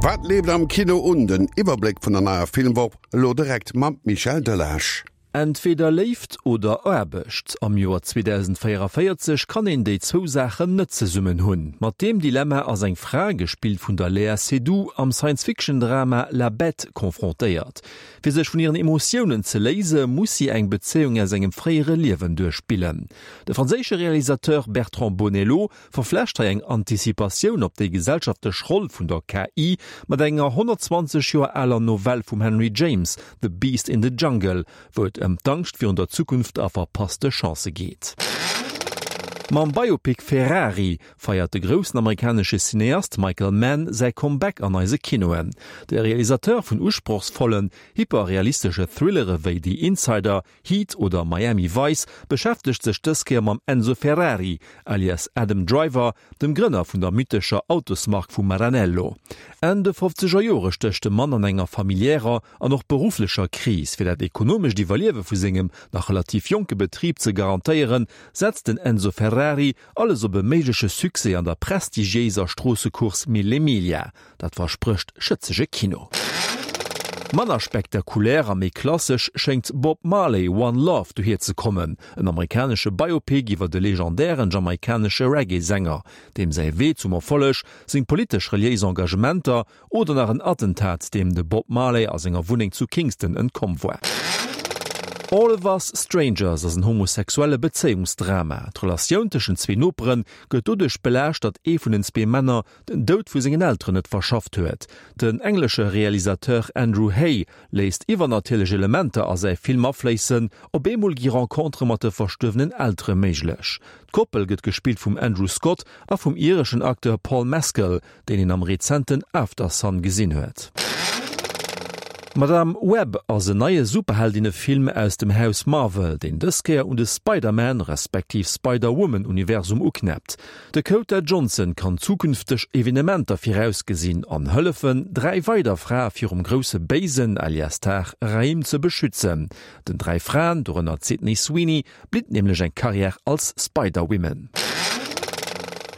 Wat leeft am Kino un? Den Iwwerbléck vun der neier Filmwoch elo direkt mam Michel Delage. Entweder Léift oder Aarbecht. Am Joer 2044 kann een déi zwou Saachen net zesummen hunn. Mat deem Dilemma ass eng Fra, gespillt vun der Léa Seydoux, am Science-Fiction-Drama La Bête confrontéiert. Fir sech vun hiren Emotiounen ze léise muss si eng Bezéiung aus engem fréiere Liewen duerchspillen. De franséische Realisateur Bertrand Bonello verflecht hei eng Anticipatioun op déi gesellschaftlech Roll vun der KI mat enger 120 Joer aler Novell vum Henry James, The Beast in the Jungle, wou et ëm d'Angscht virun der Zukunft a verpasste Chancë geet. Mam Biopic Ferrari feiert de groussen amerikanesche Cineast Michael Mann säi Comeback an eise Kinoen. De Realisateur vun usprochsvollen, hyperrealistesche Thrillere wéi The Insider, Heat oder Miami Vice beschäftegt sech dës Kéier mam Enzo Ferrari, alias Adam Driver, dem Grënner vun der mythescher Autosmark vu Maranello. Enn de fofzeger Jore stécht de Mann an enger familiärer an och berufflecher Kris. Fir dat ekonomescht Iwwerliewe vu sengem nach relativ jonke Betrib ze garantéieren, setzt den Enzo Ferrari alles op e méigleche Succès an der prestigiéiser Stroossecourse Mille Miglia. Dat versprécht schëtzege Kino. Manner spektakulär a méi klassesch schéngt Bob Marley, One Love dohier ze kommen, en amerikanesche Biopic iwwer de legendären jamaikanesche Reggae-Sänger, deem säi Wee zum Erfolleg, seng politesch-reliéis Engagementer oder nach en Attentat, deem de Bob Marley a senger Wunneng zu Kingston entkomm war. All of Us Strangers ass en homosexuelle Bezéiungsdrama. D'Relatioun tëschent zwee Nopere gëtt doduerch belaascht, datt ee vun den zwee Männer den Doud vu sengen Elteren net verschafft huet. Den englesche Realisateur Andrew Haigh léisst iwwernatierlech Elementer a säi Film afléissen, op eemol gi Rencontere mat de verstuerwenen Eltere méiglech. D'Koppel gëtt gespillt vum Andrew Scott a vum ireschen Acteur Paul Mescal, deen een am rezenten Aftersun gesinn huet. Madame Web ass en neie Superheldinnefilm aus dem Haus Marvel, deen dës Kéier un de Spider-Man respektiv Spider-Woman-Universum uknäppt. De Dakota Johnson kann zukünfteg Evenementer virausgesinn an hëllefen, dräi weider Frae virum grousse Béisen, alias Tar Rahim, ze beschützen. Den dräi Fraen, dorënner d'Sydney Sweeney, blitt nämlech eng Karriär als Spider-Women.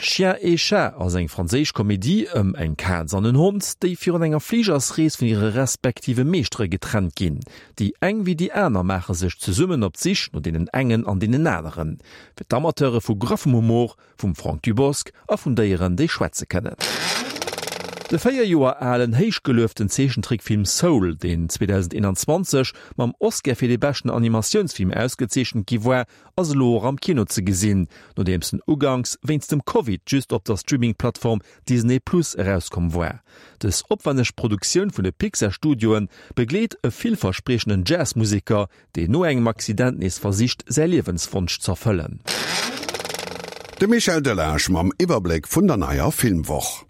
Chien et Chat ass eng franséisch Komedie ëm eng Kaz an en Hond, déi virun enger Fligersrees vun hire respektive Meeschtere getrennt ginn. Déi eng wéi déi aner maache sech zesummen op d'Sich no deenen engen an deenen aneren. Fir d'Amateure vu graffem Humor, vum Franck Dubosc a vun Déieren, déi schwätze kënnen. De 4 Joer alen, héichgelueften Zeechentrickfilm Soul, deen 2021 mam Oscar fir dee beschten Animatiounsfilm ausgezeechent gi war, ass elo och am Kino ze gesinn, nodeems en uganks wéinst dem Covid just op der Streaming-Plattform Disney Plus erauskomm war. Dës opwänneg Produktioun vun de Pixar-Studioe begleet e villverspriechenden Jazz-Museker, deen no engem Accident nees versicht säi Liewenswonsch z'erfëllen. De Michel Delage mam Iwwerbléck vun der neier Filmwoch.